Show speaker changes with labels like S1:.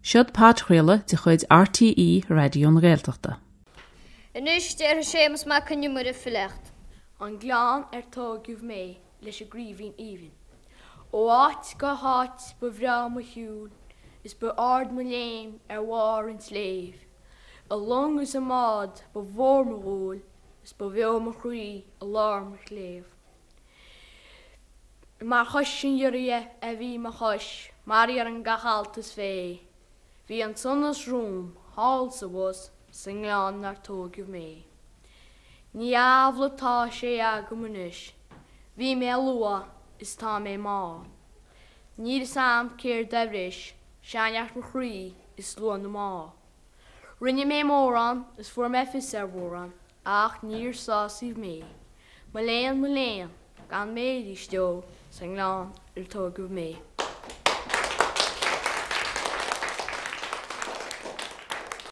S1: Seod podchraoladh de chuid RTÉ Raidió na Gaeltachta.
S2: Anois déarfaidh Séamus Mac Con Iomaire filíocht.
S3: An Gleann ar tóigeadh mé leis an gCraoibhín Aoibhinn. Ó áit go háit ba bhreá mo shiúl is ba ard mo léim ar bharr an tsléibh. I long is i mbád ba mhór mo dhúil is ba bheo mo chroí i lár mo chléibh. Mar chois an ghiorria a bhí mo chois, mar iarrann gach alt is féith. Bhí an sonas romham thall 's abhus sa ngleann 'nar tóigeadh mé. Ní amhlaidh 'tá sé agam anois, bhí mé luath is tá mé mall. Níl 'fhios a'm céard a bhris sean-neart mo chroí is luath na mball. Rinne mé mórán is fuair mé fios ar mhórán ach níor sásaíodh mé. Mo léan, mo léan, gan mé arís ó sa ngleann ar tóigeadh mé.